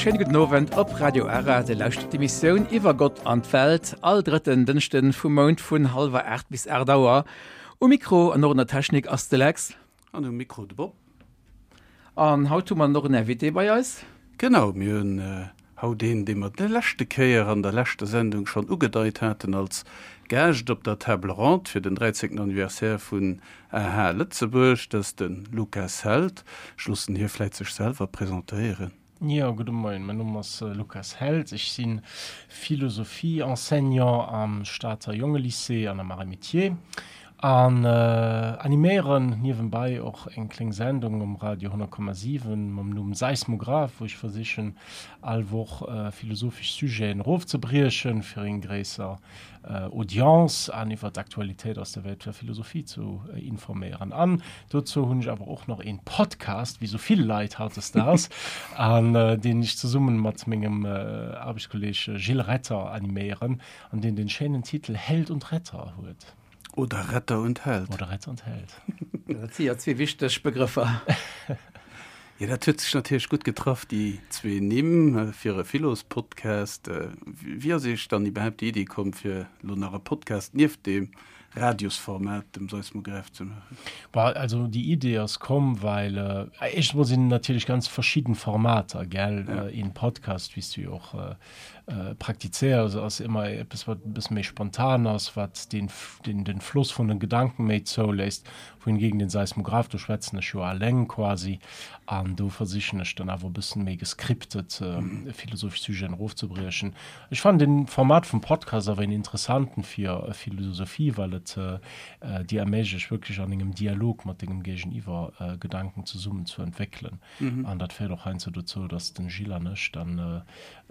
Schéine gudden Owend op Radio Ara. Dir lauschtert d'Emissioun Iwwer Gott an d'Welt all drëtten Dënschden vum Mount vun hallwer 8 bis 8 Auer. Um Mikro an och an der Technik ass de Lex. An um Mikro de Bob. An haut hu mer och en Invité bei eis. Genau, mir hunn haut een, dee mer déi leschte Kéier an der leschter Sendung schonn ugedeit haten als Gaascht op der Table Ronde fir den 13. Anniversaire vun aha Lëtzebuerg. Dat ass de Lukas Held. Ech loossen hie vläit sech selwer presentéieren. Jo, gudde Moien. Mäin Numm ass Lukas Held. Ech si Philosophie-Enseignant am Stater Jongelycée an am Arts et Métiers an animéieren niewenbei och eng kléng Sendung um Radio 100,7 mam Numm Seismograph, wou ech versichen all Woch philosophesch Sujeten erofzebriechen, fir eng gréisser Audience an iwwer d'Aktualitéit aus der Welt der Philosophie zu informéieren. An dozou hunn ech awer och nach een Podcast, wéi sou vill Leit hautdesdaags, an deen ech zesummen mat mengem Aarbechtskolleg Gilles Retter animéieren, an deen den schéinen Titel Held und Retter huet. Oder Retter und Held. Oder Retter und Held. Dat si jo zwee wichteg Begrëffer. Jo, dat huet sech natierlech gutt getraff, déi zwee Nimm fir e Philos-Podcast. Wéi ass Iech dann iwwerhaapt déi Iddi komm, fir elo nach e Podcast nieft deem Radiosformat, dem Seismograph, ze maachen? Bon, also déi Idee ass komm, well éischtens emol sinn natierlech ganz verschidden Formater, gell? Een Podcast, wéi s du jo och praktizéiers, ass ëmmer eppes, wat e bësse méi spontan ass, wat den, den Floss vun den Gedanken méi zouléisst. Wohingegen den Seismograph, do schwätzen ech jo alleng quasi, an do versichen ech dann awer e bëssen méi gescriptet philosophesch Sujeten erofzebriechen. Ech fannen den Format vum Podcast awer een interessanten fir Philosophie, well et dir erméiglecht wierklech an engem Dialog mat dengem Géigeniwwer Gedanken zesummen zu entwéckelen. An dat féiert och heiansdo dozou, dass den Gilles an ech dann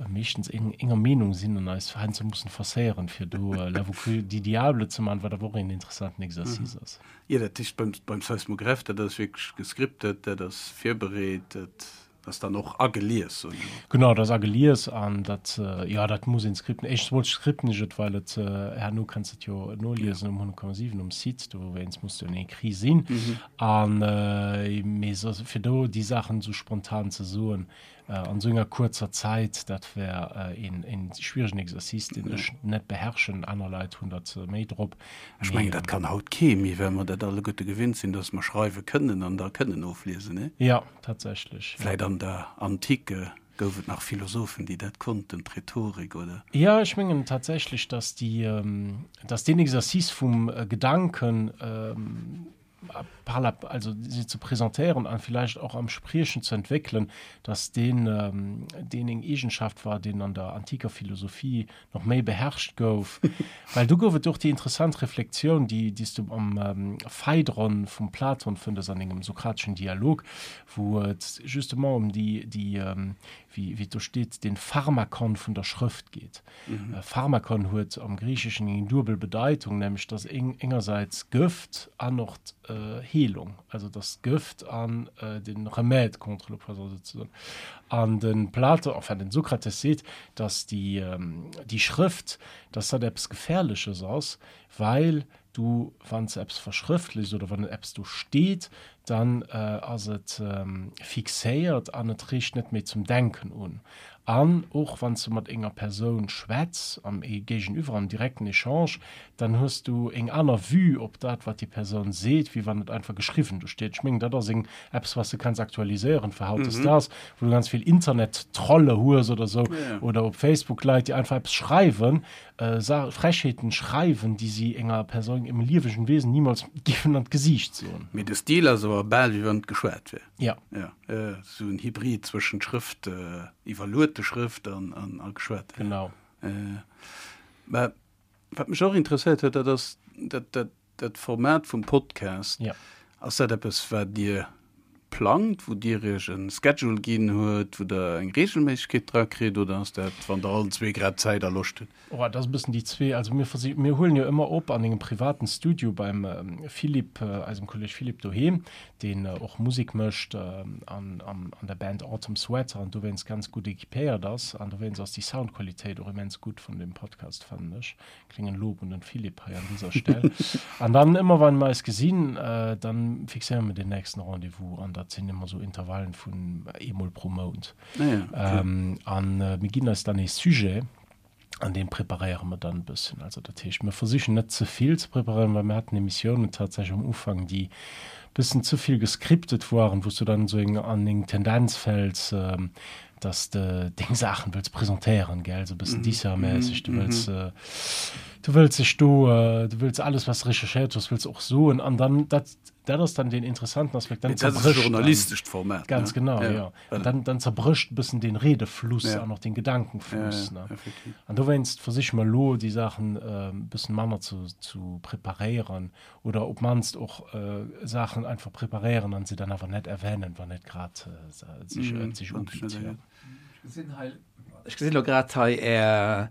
meeschtens enger Meenung sinn an eis heiansdo mussen forcéieren, fir do l'avocat du diable ze man, wat awer och een interessanten Exercice ass. Jo, dat heescht beim, beim Seismograph, dat ass wierklech gescriptet, dat ass virbereet, dat ass dann och agelies, soen ech emol. Genau, dat ass agelies an dat, jo, dat muss een scripten. Éischtens emol scripten ech et, well et herno kanns de et jo noliesen um 100,7 um Site, dowéinst muss jo en écrit sinn. An, mee soss, fir do déi Saachen esou spontan ze soen, An esou enger kuerzer Zäit, dat wär een schwieregen Exercice, deen ech net beherrschen. Aner Leit hunn dat méi drop. Ech mengen, dat kann haut kee méi, well mer dat alleguerte gewinnt sinn, dass mer schreiwe kënnen an da kënnen ofliesen, nee? Jo, tatsächlech. Vläit an der Antike gouf et nach Philosophen, déi dat konnten, d'Rhetorik, oder? Jo, ech mengen tatsächlech, dass déi, dass deen Exercice vum Gedanken, par la, also se ze presentéieren an vielleicht och am Spriechen ze entwéckelen, dass deen, deen eng Eegenschaft war, deen an der antiker Philosophie nach méi beherrscht gouf. Well do gouf et och déi interessant Reflexioun, déi, déi s du am Phaidron vum Platon fëndes an engem sokrateschen Dialog, wou et justement ëm déi, déi, wéi, wéi et do steet, den Pharmakon vun der Schrëft geet. Pharmakon huet am Griicheschen eng duebel Bedeitung, nämlech dass engersäits Gëft an och d'Heelung, also dass d'Gëft an de Remède contre le poison souzesoen. An de Platon, enfin den Sokrates seet, dass déi Schrëft, dass dat eppes Gefährleches ass, well du, wann s de eppes verschrëftlechs oder wann eppes do steet, dann ass et fixéiert an et reegt net méi zum Denken un. An och wann s du mat enger Persoun schwätz, am Géigeniwwer, am direkten Echange, dann hues du eng aner Vue op dat, wat déi Persoun seet, wéi wann et einfach geschriwwen do steet. Ech mengen, dat ass eng eppes, wat s de kanns aktualiséieren fir hautdesdaags, wou du ganz vill Internettrolle hues oder sou, oder op Facebook Leit, déi einfach eppes schreiwen, Frechheeten schreiwen, déi si enger Persoun, engem liewegen Wesen niemals géifen an d'Gesiicht soen. Mee de Stil ass awer bal wéi wann et geschwat wär. Ja. Ja, esou en Hybrid zwëschent Schrëft, iwwerluete Schrëft an, an, a geschwat. Genau. Mä wat mech och interesséiert huet, dat ass dat, dat, Dat Format vum Podcast, ja. ass dat eppes, wat Dir plangt, wou Dir Iech e Schedule ginn huet, wou Der eng Reegelméissegkeet dra kritt, oder ass dat, wann Der allen zwee grad Zäit a Loscht hutt? Oh, dat ass e bëssen déi zwee. Also mir versi-, mir huelen jo ëmmer op an engem privaten Studio beim Philippe, eisem Kolleg Philippe doheem, deen och Musek mécht an an der Band Autumn Sweater an dowéinst ganz gutt equipéiert ass. An dowéinst ass déi Soundqualitéit och immens gutt vun deem Podcast, fannen ech. Klengen Lob un den Philippe hei an dieser Stell. An dann ëmmer wann mer eis gesinn, dann fixéiere mer den nächsten Rendez-vous an da. Dat sinn ëmmer esou Intervallen vun eemol pro Mount. An mir ginn eis dann ee Sujet an dee preparéiere mer dann e bëssen. Also dat heescht, mir versichen net ze vill ze preparéieren, well mir haten Emissiounen tatsächlech am Ufank, déi e bëssen ze vill gescriptet waren, wou s du dann esou eng an eng Tendenz fäls, dass de deng Saachen wëlls presentéieren, gell, esou e bëssen Disser-mässeg, du wëlls, du wëlls dech do, du wëlls alles, wat s de recherchéiert hues, wëlls och soen an dann dat, dat ass dann deen interessanten Aspekt, dann Mee dat ass e zerbrécht dann, journalistescht Format, ganz ne? genau, Ja, jo, an voilà. dann, dann zerbrécht e bëssen dee Redefluss Ja. an och den Ja, Gedankenfluss, ja, ne. effektiv. An dowéinst versiche mer elo, déi Saachen e bëssen manner ze, zu preparéieren oder op d'mannst och Saachen einfach preparéieren an se dann awer net erwänen, wann et grad sech et sech ubitt. Jo. Ech gesinn elo grad hei, Är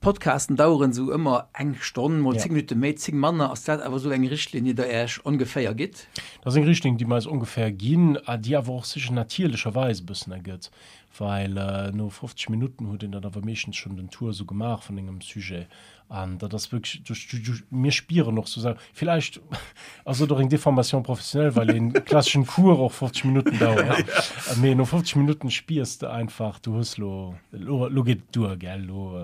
Podcasten daueren esou ëmmer eng Stonn, mol 10 Minutte méi, 10 manner. Ass dat awer esou eng Richtlinie, déi Der Iech ongeféier gitt? Dat ass eng Richtlinn, déi mer eis ongeféier ginn, déi awer och sech natierlecherweis e bëssen ergëtt, well no 50 Minutten huet een dann awer meeschtens schonn den Tour esou gemaach vun engem Sujet An dat ass wierklech, du, mir spieren och sou, villäicht ass et och eng Déformation professionnelle, well een klasseschen Cours och 50 Minutten dauert. Mee no 50 Minutten spiers de einfach, du hues lo, lo, lo geet et duer, gell, lo,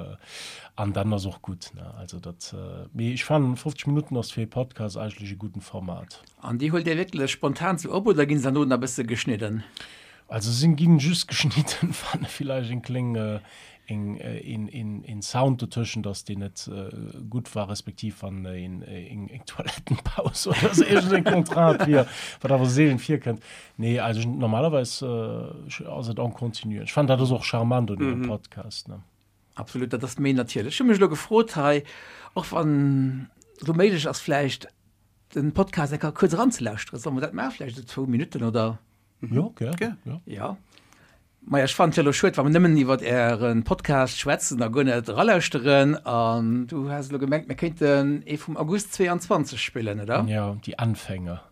an dann ass och gutt, ne. Also dat, mee ech fannen 50 Minutten ass fir ee Podcast eigentlech e gudden Format. An déi huelt Dir wierklech spontan sou op oder ginn se dann no nach e bësse geschnidden? Also se ginn just geschnidden, wann villäicht eng kléng eng een een een Sound dotëschent ass deen net gutt war, respektiv wann een eng eng Toilettenpaus oder esou iergend eng Contrainte wier, wat awer seelen virkënnt. Nee, also normalerweis ass et en continu. Ech fannen dat ass och charmant un engem Podcast, ne. Absolut, dat ass méi natierlech. Ech hu mech elo gefrot hei, och wann elo méiglech ass vläicht den Podcast eng Kéier kuerz eranzelauschteren. Solle mer dat maachen, vläicht esou zwou Minutten oder? Jo, gär. Gär. Jo. Ja. Maja, ech fannen et jo elo schued, wa mer nëmmen iwwert Äre Podcast schwätzen a guer net eralauschteren. An du has elo gemengt, mir kéinten ee vum August 22 spillen, oder? Ja, die Anfänger.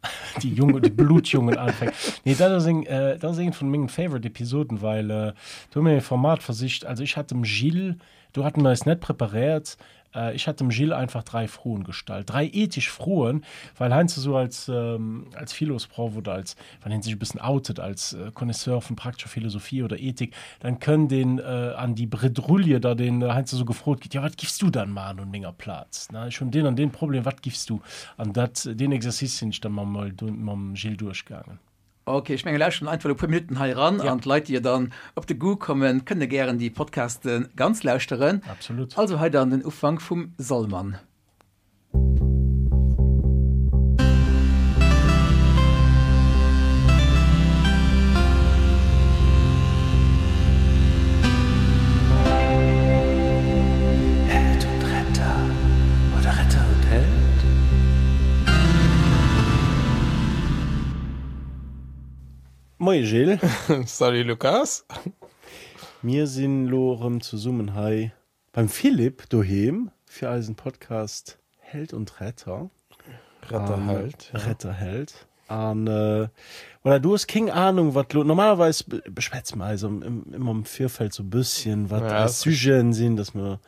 Die junge, die blutjungen Anfänger. Nee, dat ass eng, dat ass eng vun mengen favorite Episoden, well do hu mir e Format versicht. Also ech hat dem Gilles, do haten mir eis net preparéiert, Ech hat dem Gilles einfach 3 Froen gestallt, 3 ethesch Froen, well heiansdo sou als, als Philosproff oder als, wann een sech e bëssen outet als Connaisseur vun praktescher Philosophie oder Ethik, dann kënnt een an déi Bredrouille, datt een heiansdo sou gefrot gëtt, jo wat giffs du dann maachen un menger Plaz, ne, ech hunn deen an deen Problem, wat giffs du? An dat, deen Exercice sinn ech dann mam, mam Gilles duerchgaangen. Ok, ech menge lauschteren einfach e puer Minutten hei eran an d'Leit déi jo dann op de Goût kommen, kënne gären déi Podcaste ganz lauschteren. Absolut. Also hei dann den Ufank vum Sollmann. Held und Retter oder Retter und Held? Moie Gilles. Salut Lukas. Mir sinn lo erëm zesummen hei beim Philippe doheem fir eisen Podcast Held und Retter. Retter Held. Retter Held. An voilà, du hues kéng Ahnung wat lo, normalerweis beschwätze mer eis ëmmer am Virfeld sou bësschen wat eis Sujeten sinn, dass mer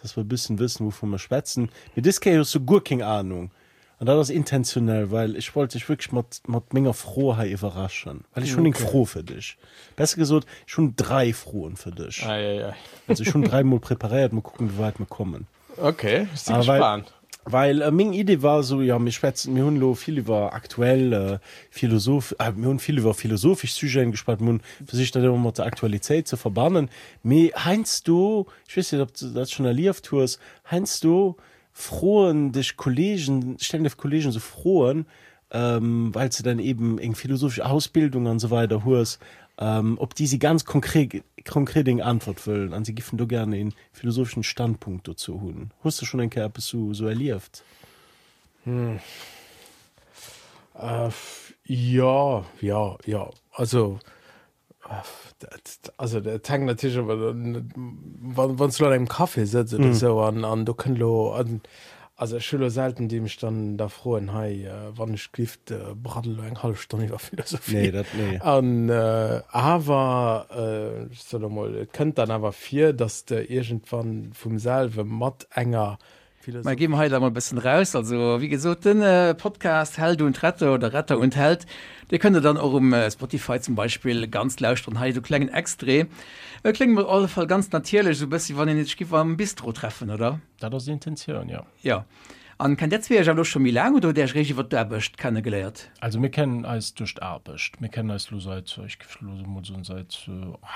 dass mer e bëssen wëssen wouvun mer schwätzen. Mee dës Kéier hues du guer kéng Ahnung. An dat ass intentionell, well ech wollt dech wierklech mat, mat menger Fro hei iwwerraschen. Well ech hunn eng Fro fir dech. Besser gesot, ech hunn drai Froen fir dech. Ei, ei, ei. Also ech hunn dräimol preparéiert, mol kucken, wéi wäit mer kommen. Okay, ech si Ah, well, gespaant. well äh, meng Idee war esou, jo, mir schwätzen, mir hunn elo vill iwwer aktuell äh, Philosoph, äh, mir hunn vill iwwer philosophesch Sujeten geschwat, mir hunn versicht, dat ëmmer mat der Aktualitéit ze verbannen. Mee heiansdo, ech weess net, ob s de dat schonn erlieft hues, heiansdo Froen dech Kollegen, stellen dech Kollegen sou Froen, well s de dann eben eng philosophesch Ausbildung an esou weider hues, op déi si ganz konkret, konkret eng Antwort wëllen an si giffen do gären een philosopheschen Standpunkt dozou hunn. Hues de schonn eng Kéier eppes sou, sou erlieft? Jo, jo, jo. Also Also dat hänkt natierlech awer wann wann s du an engem Café sëtz oder esou an an do kënnt elo an also ech hu lo selten déi mech dann da froen hei wann ech gift braddel elo eng hallef Stonn iwwer Philosophie. Nee, dat nee. An awer ech soe lo mol et kënnt dann awer vir, datt s de iergendwann vum selwe mat enger. Mä gi mer hei da mol e bëssen raus. Also, wéi gesot, den Podcast Held und Retter oder Retter und Held, dee kënnt Der dann och um Spotify zum Beispill ganz lauschteren. Hei esou klengen Extrait. Et kléngt op alle Fall ganz natierlech, esou e bëssi wann een sech giff am Bistro treffen, oder? Dat ass d'Intentioun, jo. Jo. An kennt där zwee iech awer elo scho méi laang oder hutt där iech eréischt iwwer d'Aarbecht kenne geléiert? Also mir kennen eis duerch d'Aarbecht. Mir kennen eis elo seit, ech géif elo emol soen, seit,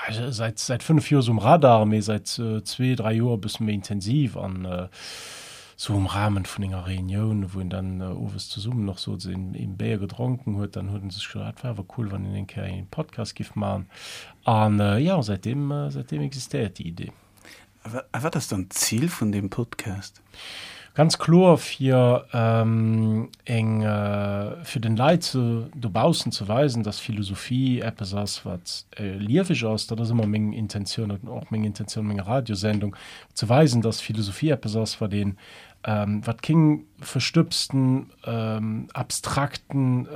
seit, seit 5 Joer esou um Radar, mee seit zwee, dräi Joer e bësse méi intensiv an esou um Rahmen vun enger Reunioun, wou een dann owes zesummen och sot, een een Béier gedronken huet, dann huet en sech gesot, ah, et wär awer cool, wann een eng Kéier een Podcast giff maachen. An jo, säitdeem, säitdeem existéiert déi Idee. A wat ass dann d'Zil vun deem Podcast? Ganz kloer fir eng, fir den Leit ze dobaussen ze weisen, dass Philosophie eppes ass, wat lieweg ass. Dat ass ëmmer meng Intentioun an och meng Intentioun menger Radiosendung, ze weisen, dass Philosophie eppes ass, wat een, wat keng verstëbsten, abstrakten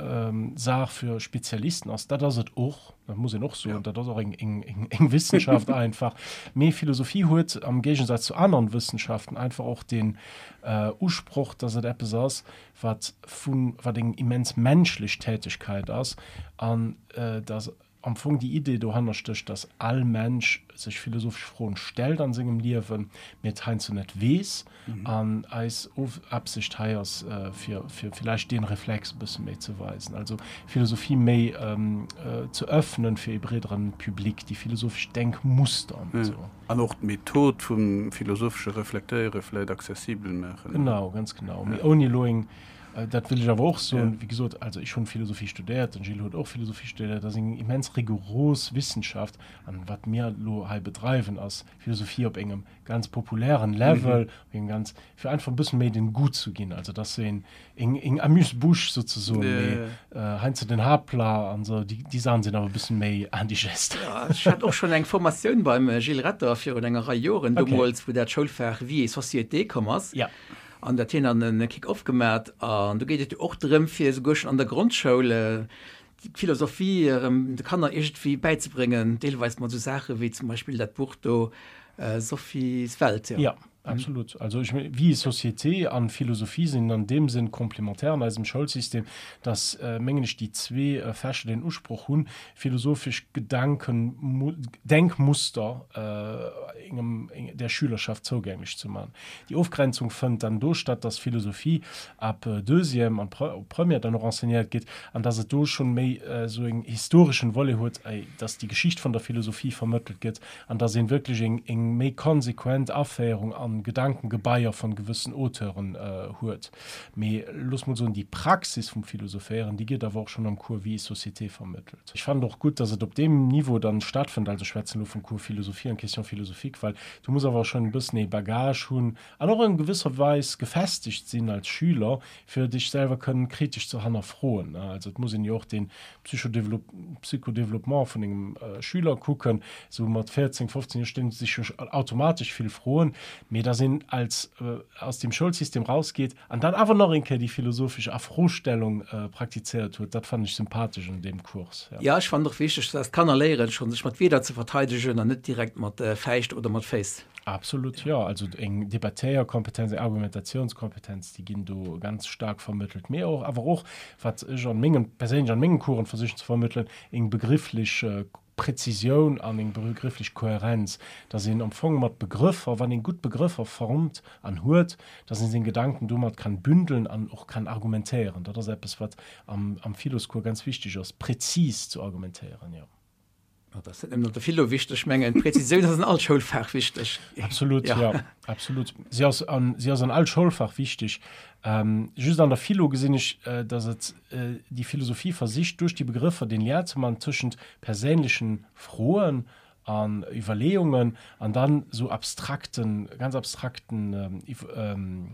Saach fir Spezialisten ass. Dat ass et och. Dat muss een och soen, dat ass och eng Wissenschaft einfach. Mee Philosophie huet am Géigensaz zu aneren Wëssenschaften einfach och den Usproch, dass et eppes ass, wat vun, wat eng immens menschlech Tätigkeit ass an dass am Fong déi Idee dohanner stécht, dass all Mensch sech philosophesch Froen stellt an sengem Liewen, mee et heiansdo net weess. An eis Absicht hei ass, fir villäicht dee Reflex e bësse méi ze weisen, also Philosophie méi ze öffnen fir ee breederen Public, déi philosophesch Denkmuster an esou. An och d'Method vum philosophesche Reflektéiere vläicht accessibel maachen. Genau, ganz genau. Mee ouni elo eng, dat wëll ech awer och soen, wéi gesot, also ech hunn Philosophie studéiert, den Gilles huet och Philosophie studéiert, dat ass eng immens rigoros Wissenschaft. An wat mir elo hei bedreiwen, ass Philosophie op engem ganz populären Level, mm -hmm. ganz fir einfach e bëssen méi den Goût zu ginn, also dass so een eng eng Amuse-bouche sozusagen, yeah. mee äh, heiansdo den Haaptplat an so déi déi Saachen sinn awer e bëssen méi indigest. Ja, ech hat och schon eng Formatioun beim äh, Gilles Retter virun enger Rei Joren, okay. deemools wou dat Schoulfach Vie et Société komm ass. Ja. An dat hien an en Kick-off gemat an do geet et jo och drëm fir esouguer schon an der Grondschoul äh, d'Philosophie erëm de Kanner iergendwéi bäizebréngen, deelweis mat esou Saache wéi zum Beispill dat Buch do Sophies Welt. Jo, absolut. Also ech mengen, Vie et société an Philosophie sinn an deem Sënn complémentaire an eisem Schoulsystem, dass, mengen ech, déi zwee Fächer den Usproch hunn, philosophesch Gedanken, Denkmuster engem, der Schülerschaft zougänglech ze man. Déi Ofgrenzung fënnt dann do statt, dass Philosophie ab Deuxième an Première dann och enseignéiert gétt an dass et do schonn méi esou en historeschen Volet huet, dass déi Geschicht vun der Philosophie vermëttelt gëtt an dass een wierklech eng eng méi konsequent Aféierung an Gedankengebaier von gewëssen Auteuren huet. Mee looss mol soen, déi Praxis vum Philosophéieren, déi gëtt awer och schonn am Cours Vie et société vermëttelt. Ech fannen och gutt, dass et op deem Niveau dann stattfënnt, also ech schwätzen elo vum Cours Philosophie an Questions philosophiques, well du muss awer schonn e bëssen ee Bagage hunn an och an gewësser Weis gefestegt sinn als Schüler, fir dech selwer kënnen kritesch ze hannerfroen. Also et muss een jo och den Psychodéveloppement vun engem Schüler kucken. Esou mat 14, 15 Joer stellen se sech jo automatesch vill Froen, mee dass een als aus dem Schoulsystem rausgeet an dann awer nach eng Kéier déi philosophesch Afrostellung praktizéiert huet, dat fannen ech sympathesch un deem Cours. Jo, ech fannen och wichteg, dass d'Kanner léieren, schonn sech mat Wierder ze verteidegen an net direkt mat Fäischt oder mat Féiss. Absolut, jo. Also eng Debattéierkompetenz, eng Argumentatiounskompetenz, déi ginn do ganz staark vermëttelt. Mee och, awer och, wat ech an mengem, perséinlech an mengen Coursen versichen ze vermëttelen, eng begrifflech Präzisioun an eng begrifflech Kohärenz, dass een am Fong mat Begrëffer, wann een gutt Begrëffer formt an huet, dass een seng Gedanken domat kann bündeln an och kann argumentéieren. Dat ass eppes, wat am, am Philoscours ganz wichteg ass, präzis zu argumentéieren, jo. Dat ass net nëmmen an der Philo wichteg, ech mengen d'Präzisioun ass an all Schoulfach wichteg. Absolut, ja. ja absolut. Si ass an, si ass an all Schoulfach wichteg. Ähm, just an der Philo gesinn ech, äh, datt et äh, déi Philosophie versicht, duerch déi Begrëffer den Lien ze man tëschent perséinlechen Froen an Iwwerleeungen an dann sou abstrakten, ganz abstrakten ähm, ähm,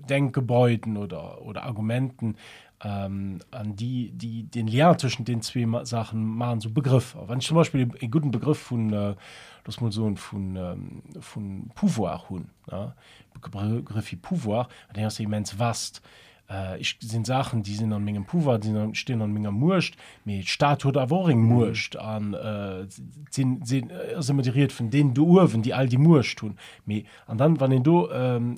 Denkgebäuden oder, oder Argumenten, An déi, déi den Lien tëschent den zwee Saachen maachen, esou Begrëffer. Wann ech zum Beispill e gudden Begrëff vun, looss mol soen, vun, vun Pouvoir hunn, ne, Begrëff wéi Pouvoir, deen ass jo immens vast. Ech sinn Saachen, déi sinn an mengem Pouvoir, déi sinn, stinn an menger Muecht, mee d'Stad huet awer och eng Muecht an et sinn, sinn, ass ëmmer déi Ried vun deenen do uewen, déi all déi Muecht hunn. Mee, an dann, wann een do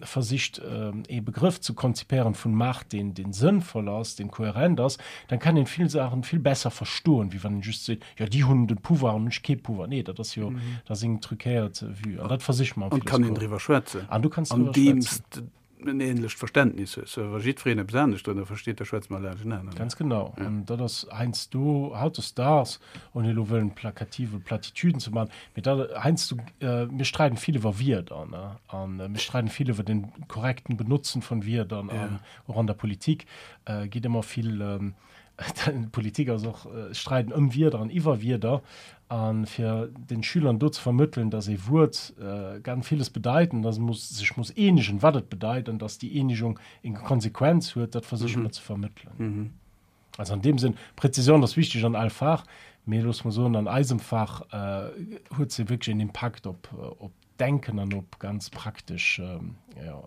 versicht ee Begrëff ze konzipéieren vun Macht, deen, deen sënnvoll ass, deen kohärent ass, dann kann een vill Saachen vill besser verstoen, wéi wann een just seet, jo déi hunn de Pouvoir an ech kee Pouvoir. Nee, dat ass jo, dat ass eng truquéiert Vue an dat versiche mer am An et kann een driwwer schwätzen, An du kanns driwwer schwätzen. en ähnlecht Verständnis hues. Wa jiddwereen eppes anescht drënner versteet, da schwätze mer laanschtenaner. Ganz genau. An dat ass heiansdo, hautdesdaags, ouni elo wëllen plakative Platitüden ze maachen, mee dat heiansdo, mir streiden vill iwwer Wierder, ne, a mir streiden vill iwwer den korrekten Benotzen von Wierder an och an der Politik geet ëmmer vill, Politik ass och Streiden ëm Wierder an iwwer Wierder. A fir den Schülern do ze vermëttelen, datt ee Wuert ganz villes bedeit an datt ee sech muss eenegen, wat et bedeit an datt déi Eenegung eng Konsequenz huet, dat versiche mer ze vermëttelen. Also an deem Sënn, Präzisioun ass wichteg an all Fach, mee loosse mer soen, an eisem Fach huet se wierklech en Impakt op d'Denken an op ganz praktesch, jo,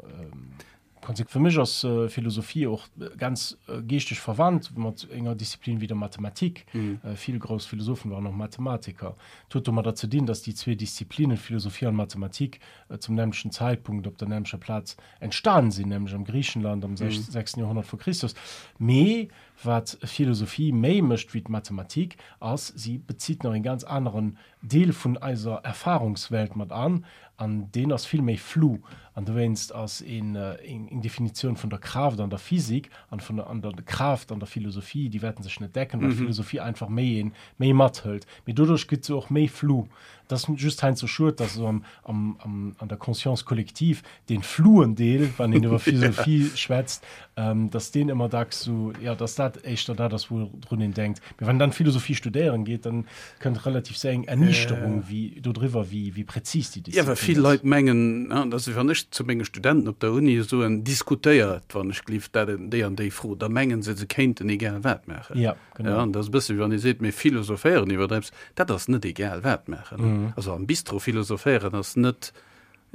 Fir mech ass Philosophie och ganz geeschteg verwandt mat enger Disziplin wéi der Mathematik. Vill grouss Philosophen waren och Mathematiker. Et huet domadder ze dinn, datt déi zwee Disziplinen, Philosophie an Mathematik, zum nämmlechten Zäitpunkt op der nämmlecher Plaz entstan sinn, nämlech am Griichenland am sechsten Joerhonnert vor Christus. Mee wat Philosophie méi mécht wéi d'Mathematik, ass, si bezitt nach en ganz aneren Deel vun eiser Erfahrungswelt mat an, an deen ass vill méi flou. An dowéinst ass een eng Definitioun vun der Kraaft an der Physik an vun an der Kraaft an der Philosophie, déi wäerten sech net decken, well d'Philosophie einfach méi een méi mathëlt. Mee doduerch gëtt se och méi flou. Et ass just heiansdo schued, dass esou am am am an der Conscience collective dee flouen Deel, wann een iwwer Philosophie schwätzt, dass deen ëmmer dacks esou, jo, dass dat éischter dat ass, woudrun een denkt. Mee wann een dann Philosophie studéieren geet, dann kënnt relativ séier eng Erniichterung wéi dodriwwer, wéi, wéi präzis déi Jo, well Disziplin vill ass. Leit mengen, an dat ass, wann ech zu menge Studenten op der Uni soen, diskutéiert, wann ech gelift, dat, déi an déi Fro, da mengen se, se kéinten egal wat maachen. Ja, genau. Ja, an dat ass e bësse wéi wann ee seet, mir philosophéieren iwwer eppes. Dat ass net egal wat maachen. Also am Bistro philosophéieren ass net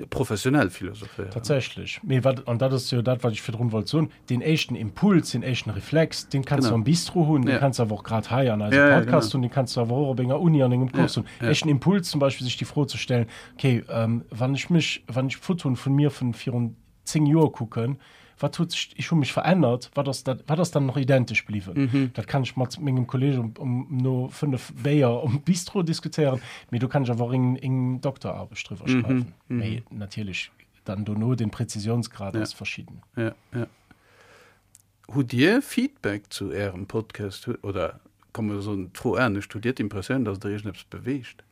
Professionell philosophéieren. Tatsächlech. Mee wat, an dat ass jo dat, wat ech virdrun wollt soen, deen éischten Impuls, deen éischten Reflex, deen kanns du am Bistro hunn, deen kanns du awer och grad hei an eisem Podcast hunn, deen kanns du awer och op enger Uni an engem Cours hunn. Éischten Impuls zum Beispill, sech déi Fro ze stellen, okay, wann ech mech, wann ech Fotoen vun mir vun virun 10 Joer kucken, wat huet sech, ech hu mech verännert, wat ass dat, wat ass dann nach identesch bliwwen? Dat kann ech mat mengem Kolleeg um, um, no 5 Béier um Bistro diskutéieren, mee do kann ech awer och eng, eng Dokteraarbecht driwwer schreiwen. Mee natierlech dann dono den Präzisionsgrad ass verschidden. Ja, ja. Hutt Dir Feedback zu Ärem Podcast oder komm mir soen d'Fro anescht, hutt Dir d'Impressioun, datt Der iergendeppes beweegt?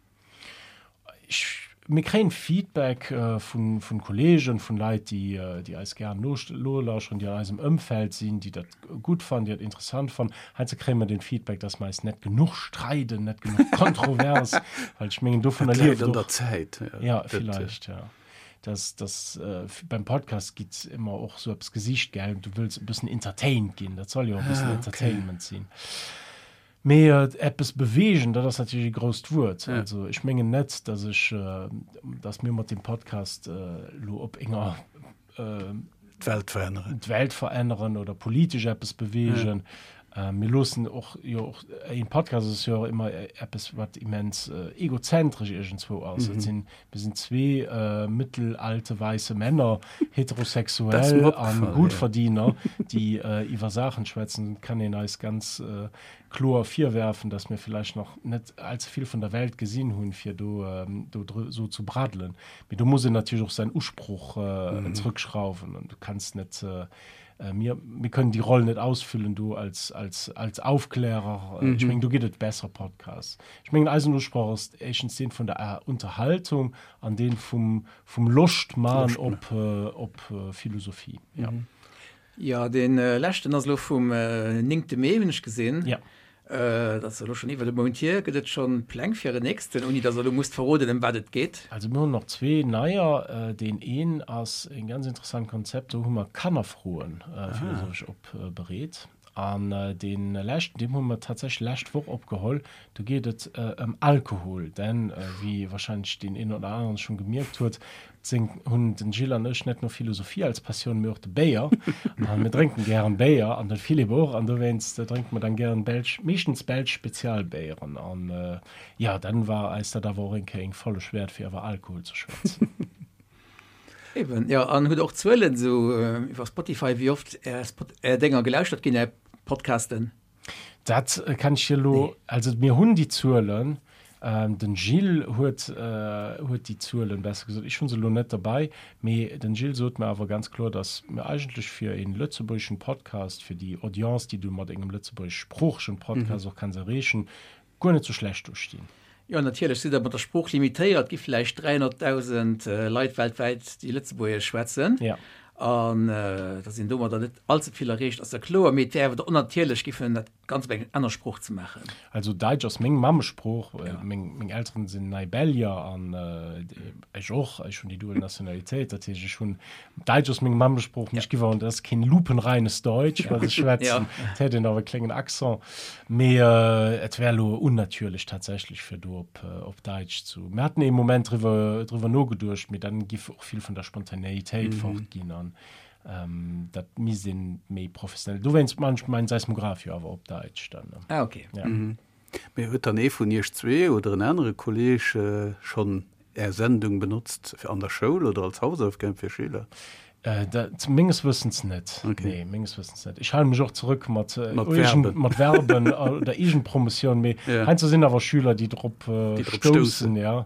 Ech, mir kréien Feedback vun, vun Kollegen, vun Leit, déi, déi eis gären nolauschteren, déi an eisem Ëmfeld sinn, déi dat gutt fannen, déi dat interessant fannen. Heiansdo kréie mer den Feedback, dass mer eis net genuch streiden, net genuch kontrovers, well ech mengen, dovunner Dat läit lieft an der och. Zäit. Ja, Dat, villäicht, ja. Dass, dass beim Podcast gitt ëmmer och sou eppes gesicht, gell, du wëlls e bëssen entertained ginn, dat soll jo och e bëssen Ah, okay. Entertainment sinn. Mee eppes beweegen, dat ass natierlech e grousst Wuert. Also ech mengen net, datt ech, datt mir mat deem Podcast elo op enger D'Welt veränneren. D'Welt veränneren oder politesch eppes beweegen. Mir loossen och jo och, een Podcast ass jo och ëmmer eppes, wat immens egozentresch iergendzwou ass. Et sinn, mir sinn zwee mittelalte weisse Männer, heterosexuell a Gutverdiener, déi iwwer Saachen schwätzen. Et kann een eis ganz kloer virwerfen, datt mir villäicht nach net allze vill vun der Welt gesinn hunn, fir do esou zu braddelen. Mee do muss een natierlech och säin Usproch zrëckschrauwen. Du kanns net Mir, mir kënnen déi Roll net ausfüllen do als, als, als Aufklärer. Mhm. Ech mengen, do gëtt et besser Podcasts. Ech mengen, eisen Usproch ass éischtens deen vun der äh, Unterhaltung an deen vum, vum Loscht man op, äh, op äh, Philosophie. Ja. Mhm. Ja, den äh, leschten ass lo vum äh, 9. Mee hunn ech gesinn. Ja. Dat ass elo schonn iwwert e Mount hier. Gëtt et schonn Pläng fir en nächsten, ouni datt Der elo musst verroden, ëm wat et geet? Also mir hunn nach zwee neier. Deen een ass e ganz interessant Konzept, do hu mer Kannerfroen philosophesch opbereet. An dee leschten, deem hu mer tatsächlech lescht Woch opgeholl, do geet et ëm Alkohol. Denn wéi wahrscheinlech deen een oder aneren schonn gemierkt huet, seng hunn den Gilles an ech net nur Philosophie als Passioun, mee och de Béier. An mir drénken gären Béier an den Philippe och. An dowéinst drénke mer dann gären belsch, meeschtens belsch Spezialbéieren. An jo, dann war eis dat awer och eng Kéier eng Folleg wäert, fir iwwer Alkohol ze schwätzen. Eben, jo. An hutt och Zuelen esou iwwer Spotify, wéi oft är Spot, är Dénger gelauschtert ginn, är Podcasten? Dat kann ech dir elo, also mir hunn déi Zuelen, den Gilles huet huet déi Zuelen, besser gesot, ech hu se elo net derbei, mee den Gilles sot mer awer ganz kloer, datt mir eigentlech fir ee lëtzebuergeschen Podcast, fir déi Audience, déi du mat engem lëtzebuergeschsproochegen Podcast och kanns erreechen, guer net sou schlecht do stinn. Jo, natierlech sidd Der mat der Sprooch limitéiert. Et gi vläicht 300.000 Leit weltwäit, déi Lëtzebuergesch schwätzen. Ja. An datt een domadder net allze vill erreecht, ass jo kloer. Mee et wär awer onnatierlech, giffen dat Ganzt op eng aner Sprooch ze maachen. Also Däitsch ass meng Mammesprooch. Meng, meng Elteren sinn Neibellier an ech och. Ech hunn déi dual Nationalitéit. Dat heescht, ech hunn, Däitsch ass meng Mammesprooch, mee ech giff awer, dat ass keen lupenreines Deutsch, wat ech schwätzen. Et hätt een awer e kléngen Accent. Mee et wär elo unnatürlech tatsächlech fir do op op Däitsch zu. Mir haten ee Moment driwwer driwwer nogeduecht, mee dann giff och vill vun der Spontanéitéit fort ginn an dat misst een méi professionell. Dowéinst man ech mäin Seismograph jo awer op Däitsch dann. Ah okay. Ja. Mee huet dann ee vun iech zwee oder en anere Kolleg schonn Är Sendung benotzt an der Schoul oder als Hausaufgab fir Schüler? Dat menges Wëssens net. Okay. Nee, menges Wëssens net. Ech hale mech och zerëck mat, Mat Verben. mat Verben oder Eegenpromotioun, mee Ja. heiansdo sinn awer Schüler, déi drop Déi drop stoussen, stoussen. ja.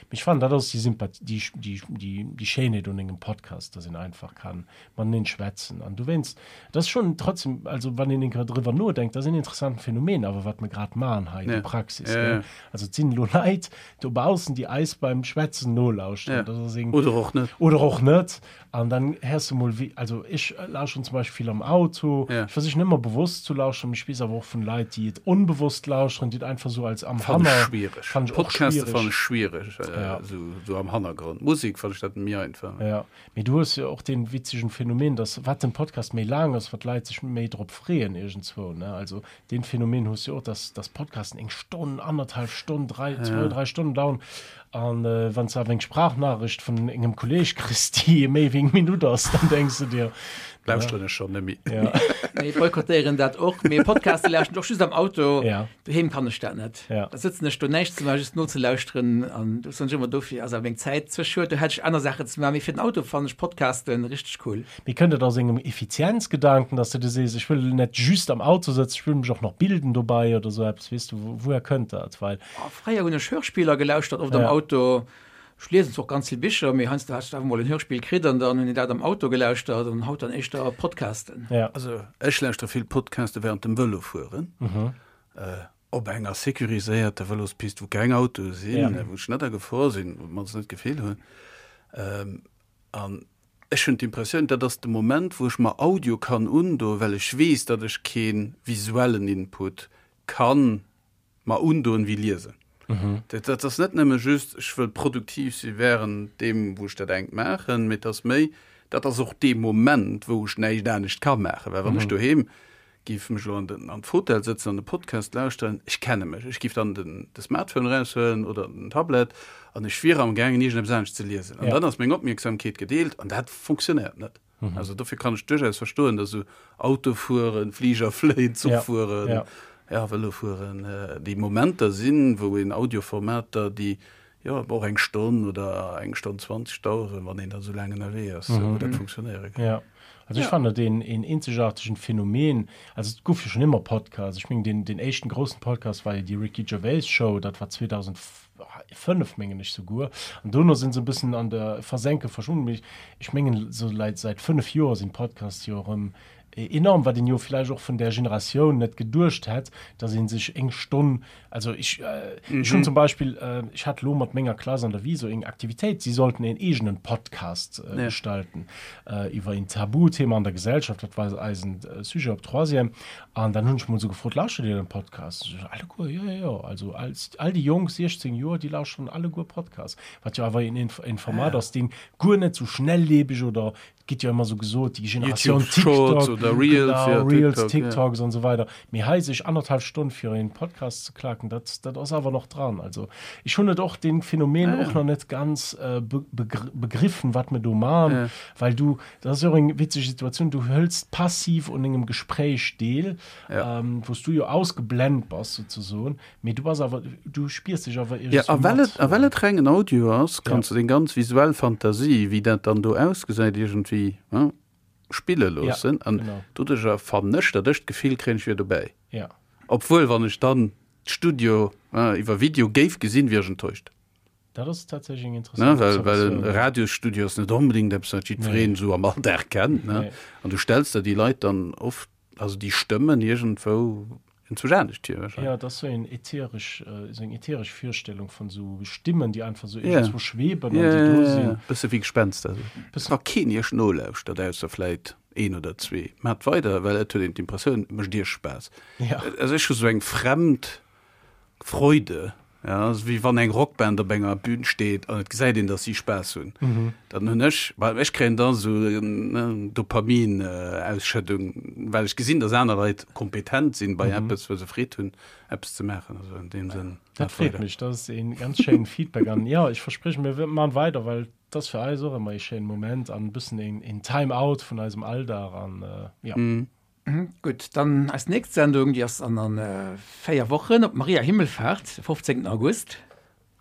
Mee ech fannen, dat ass déi Sympath-, déi, déi, déi, déi Schéinheet un engem Podcast, dass een einfach kann mateneen schwätzen. An dowéinst, dat ass schonn trotzdem, also wann een eng Kéier driwwer nodenkt, dat ass en interessanten Phänomen awer, wat mer grad maachen hei, déi Ja. Praxis, Ja, gell. ja. Also et sinn elo Leit dobaussen, déi eis beim Schwätzen nolauschteren. Ja. Dat ass eng. Oder och net. Oder och net. An dann héiers de mol wéi, also ech lauschteren zum Beispill vill am Auto. Ja. Ech versichen ëmmer bewosst zu lauschteren, mee ech weess awer och vun Leit, déi et onbewosst lauschteren, déi et einfach sou als am Fannen ech Hanner. schwiereg. Fannen ech och Podcaste fannen schwiereg. ech schwiereg, Ja. sou, sou am Hannergrond. Musek fannen ech dat méi einfach. Ja. Mee du hues jo och dee witzegen Phänomen, dass wat den Podcast méi laang ass, wat d'Leit sech méi drop freeën iergendzwou, ne? Also Deen Phänomen hues du jo och, dass, dass Podcasten eng Stonn, annerthalf Stonn, drei, zwou, drei Stonnen dauern. An äh, wann s du awer eng Sprachnachricht vun engem Kolleg kriss, déi méi wéi eng Minutt ass, dann denks du dir, Lauschteren ech schonn net méi. ja, Mee boykottéieren dat och. Mee Podcaste lauschteren ech och just am Auto. ja, Doheem kann ech dat net. Ja. Da sëtzen ech do näischt ze maachen, just nozelauschteren. An do soen ech ëmmer, dofir ass awer meng Zäit ze schued, do hätt ech aner Saachen ze maachen. Mee fir den Auto fannen ech Podcasten richteg cool. Mee kënnt et aus engem Effizienzgedanken, dass de dir sees, ech wëll net just am Auto sëtzen, ech wëll mech och nach bilden dobei oder esou eppes, weess du, wouher kënnt dat? Well. Oh, fréier hunn ech Hörspiller gelauschtert, oft am Ja. Auto. Ech liesen zwar och ganz vill Bicher, mee heiansdo hat ech awer mol en Hörspill kritt an dann hunn ech dat am Auto gelauschtert an haut dann éischter Podcasten. Ja. Also ech lauschtere vill Podcaste während dem Vëlofueren. Op enger sécuriséierter Vëlospist, wou keng Autoe sinn, Ja. wou ech net a Gefor sinn, op d'mannst net d'Gefill hunn. An ech hunn d'Impressioun, dat ass de Moment, wou ech mer Audio kann undoen, well ech weess, datt ech kee visuellen Input ka mer undoen wéi liesen. Dat dat ass net nëmme just, ech wëll produktiv si wärend deem, wou ech dat engt maachen, mee et ass méi, dat ass och dee Moment, wou ech näischt anescht ka maachen. Well wann ech doheem Giff mech elo an den an d'Fotell sëtzen an de Podcast lauschteren, ech kenne mech, ech giff dann den de Smartphone eraushuelen oder den Tablet an ech wier am gaangen iergendeppes anescht ze liesen an Ja. dann ass meng Opmierksamkeet gedeelt an dat fonctionnéiert net. Also dofir kann ech duerchaus verstoen, dass esou Auto fueren, Fliger fléien, Zuch Ja. fueren, Ja. ja Vëlo fueren, déi Momenter sinn, wou een Audioformater, déi jo och eng Stonn oder eng Stonn 20 daueren, wann een da sou laang ënnerwee ass, wou dat funktionéiere kann. Ja, also ech fannen dat een een eenzegaartegen Phänomen. Also et gouf jo schonn ëmmer Podcasts. Ech mengen deen deen éischten groussen Podcast war jo déi Ricky Gervais Show, dat war 2005 mengen ech souguer. An dono sinn se e bëssen an der Versenke verschwunnen. Mee ech mengen esou leit säit 5 Joer sinn d'Podcasts jo erëm enorm, wat een jo vläicht och vun där Generatioun net geduecht hätt, datt ee sech eng Stonn, also ech ech hunn zum Beispill, ech hat elo mat menger Klass an der Viso eng Aktivitéit, si sollten een eegenen Podcast gestalten iwwer een Tabuthema an der Gesellschaft, dat war eisen Sujet op Troisième, an dann hunn ech mol esou gefrot, Lauschtert Dir den Podcast? Se sot, Alleguer, jo, jo, jo, also all déi Jonk, 16 Joer, déi lauschteren alleguer Podcast, wat jo awer een Format ass, deen guer net esou schnelllebeg oder Et gëtt jo ëmmer esou gesot, déi Generatioun YouTube Shorts TikTok. Oder Reels, genau, ja, Reels, TikTok, TikToks ja. an so weider. Mee hei sech anderthalb Stonn fir een Podcast ze klaken, dat, dat ass awer nach dran. Also ech hunn et och den Phänomen ja, ja. och nach net ganz äh, be begriffen, wat mir do man, ja. well du, dat ass jo och eng witzeg Situatioun, du hëls passiv un engem Gespréich deel, ja. ähm, wou s du jo ausgeblend bass souzesoen, Mee du bass awer, du spiers dech awer Ja, a well et, a well et rengen Audio ass, kanns du deng ganz visuell Fantasie, wéi dat dann do ausgesäit, iergendwéi, ne, spille loossen. An doduercher fannen ech, datt ech d'Gefill kréien, ech wier dobäi. Ja. Obwuel, wann ech dann d'Studio, ne, iwwer Video géif gesinn, wier ech enttäuscht. Dat ass tatsächlech eng interessant Ne, well, well en Radiosstudio ass net onbedéngt eppes, wat jiddwereen esou am Alldag kennt, ne. An du stells der déi Leit dann oft, also déi Stëmmen iergendwou enzwousch anescht vir wahrscheinlech. Ja, et ass sou en ätheresch, sou eng ätheresch Virstellung vun sou Stimmen, déi einfach sou iergendzwou schweben an déi do sinn. Ja, bësse wéi Gespenster sou. Bëssen. Wa keen iech nolauschtert, ausser vläit een oder zwee, maacht weider, well et huet een d'Impressioun, et mécht iech Spaass. Ja. Also ech hu sou eng fremd Freude, ja, ass wéi wann eng Rockband op enger Bühn steet an et gesäit een, datt si Spaass hunn. Dann hunn ech, well ech kréien da sou Dopamin-Ausschëddung, well ech gesinn, datt aner Leit kompetent sinn bei eppes, wou se Freed hunn, eppes ze maachen. Also an deem Sënn, Dat maacht freet weider. mech, dat ass ee ganz schéinen Feedback an jo, ech verspriechen, mir man weider, well et ass fir eis och ëmmer ee schéinen Moment an e bëssen een Time-out vun eisem Alldag an jo. Gutt, dann eis nächst Sendung, déi ass an an 4 Wochen op Maria Himmelfahrt, de 15. August.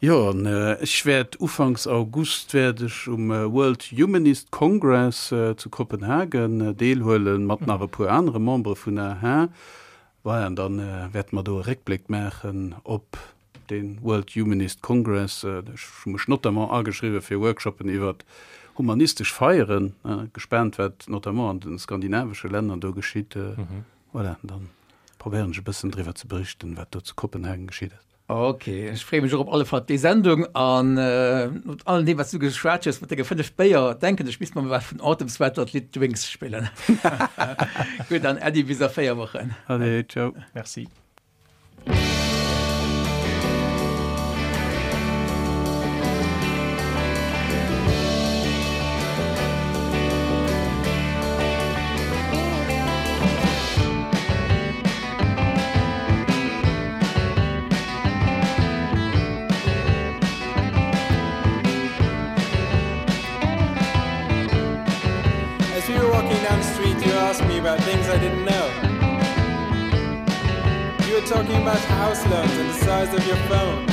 Jo, an ech wäert ufanks August wäert ech um World Humanist Congress zu Kopenhagen deelhuelen, mat nach e puer anere Membere vun aha. Voilà, an dann wäerte mer do e Réckbléck maachen op De World Humanist Congress, ech hu mech notamment ageschriwwe fir Workshoppen iwwert humanistesch Feieren. Gespaant wat notamment an de skandinavesche Länner do geschitt. Voilà, dann probéieren ech e bëssen driwwer ze berichten, wat do zu Kopenhagen geschitt ass. Ok, ech freeë mech och op alle Fall op déi Sendung an no allem deem wat s du geschwat hues mat denge 5 Béier, denken ech misst mer mol wat vun Autumn Sweater d'Lidd Drinks spillen. Gutt, dann Äddi bis a 4 Wochen. Allez, ciao. Merci. As we were walking down the street, you asked me about things I didn't know. You were talking about house loans and the size of your phone.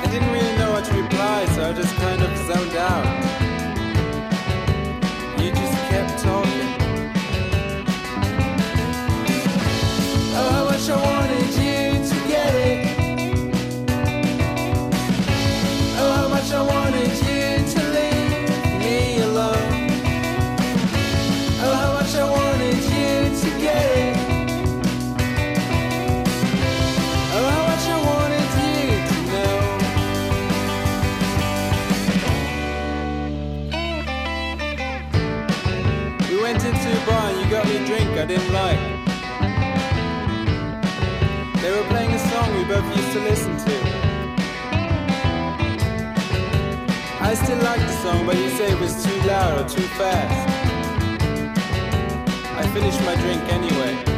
I didn't really know what to reply, so I just kind of zoned out. You just kept talking. Oh, how much I wanted you to get it. Oh, how much I wanted you to leave me alone. Oh, how much I wanted you to get it. Oh, how much I wanted you to know. We went into a bar and you got me a drink I didn't like. They were playing a song we both used to listen to. I still like the song, but you say it was too loud or too fast. I finished my drink anyway.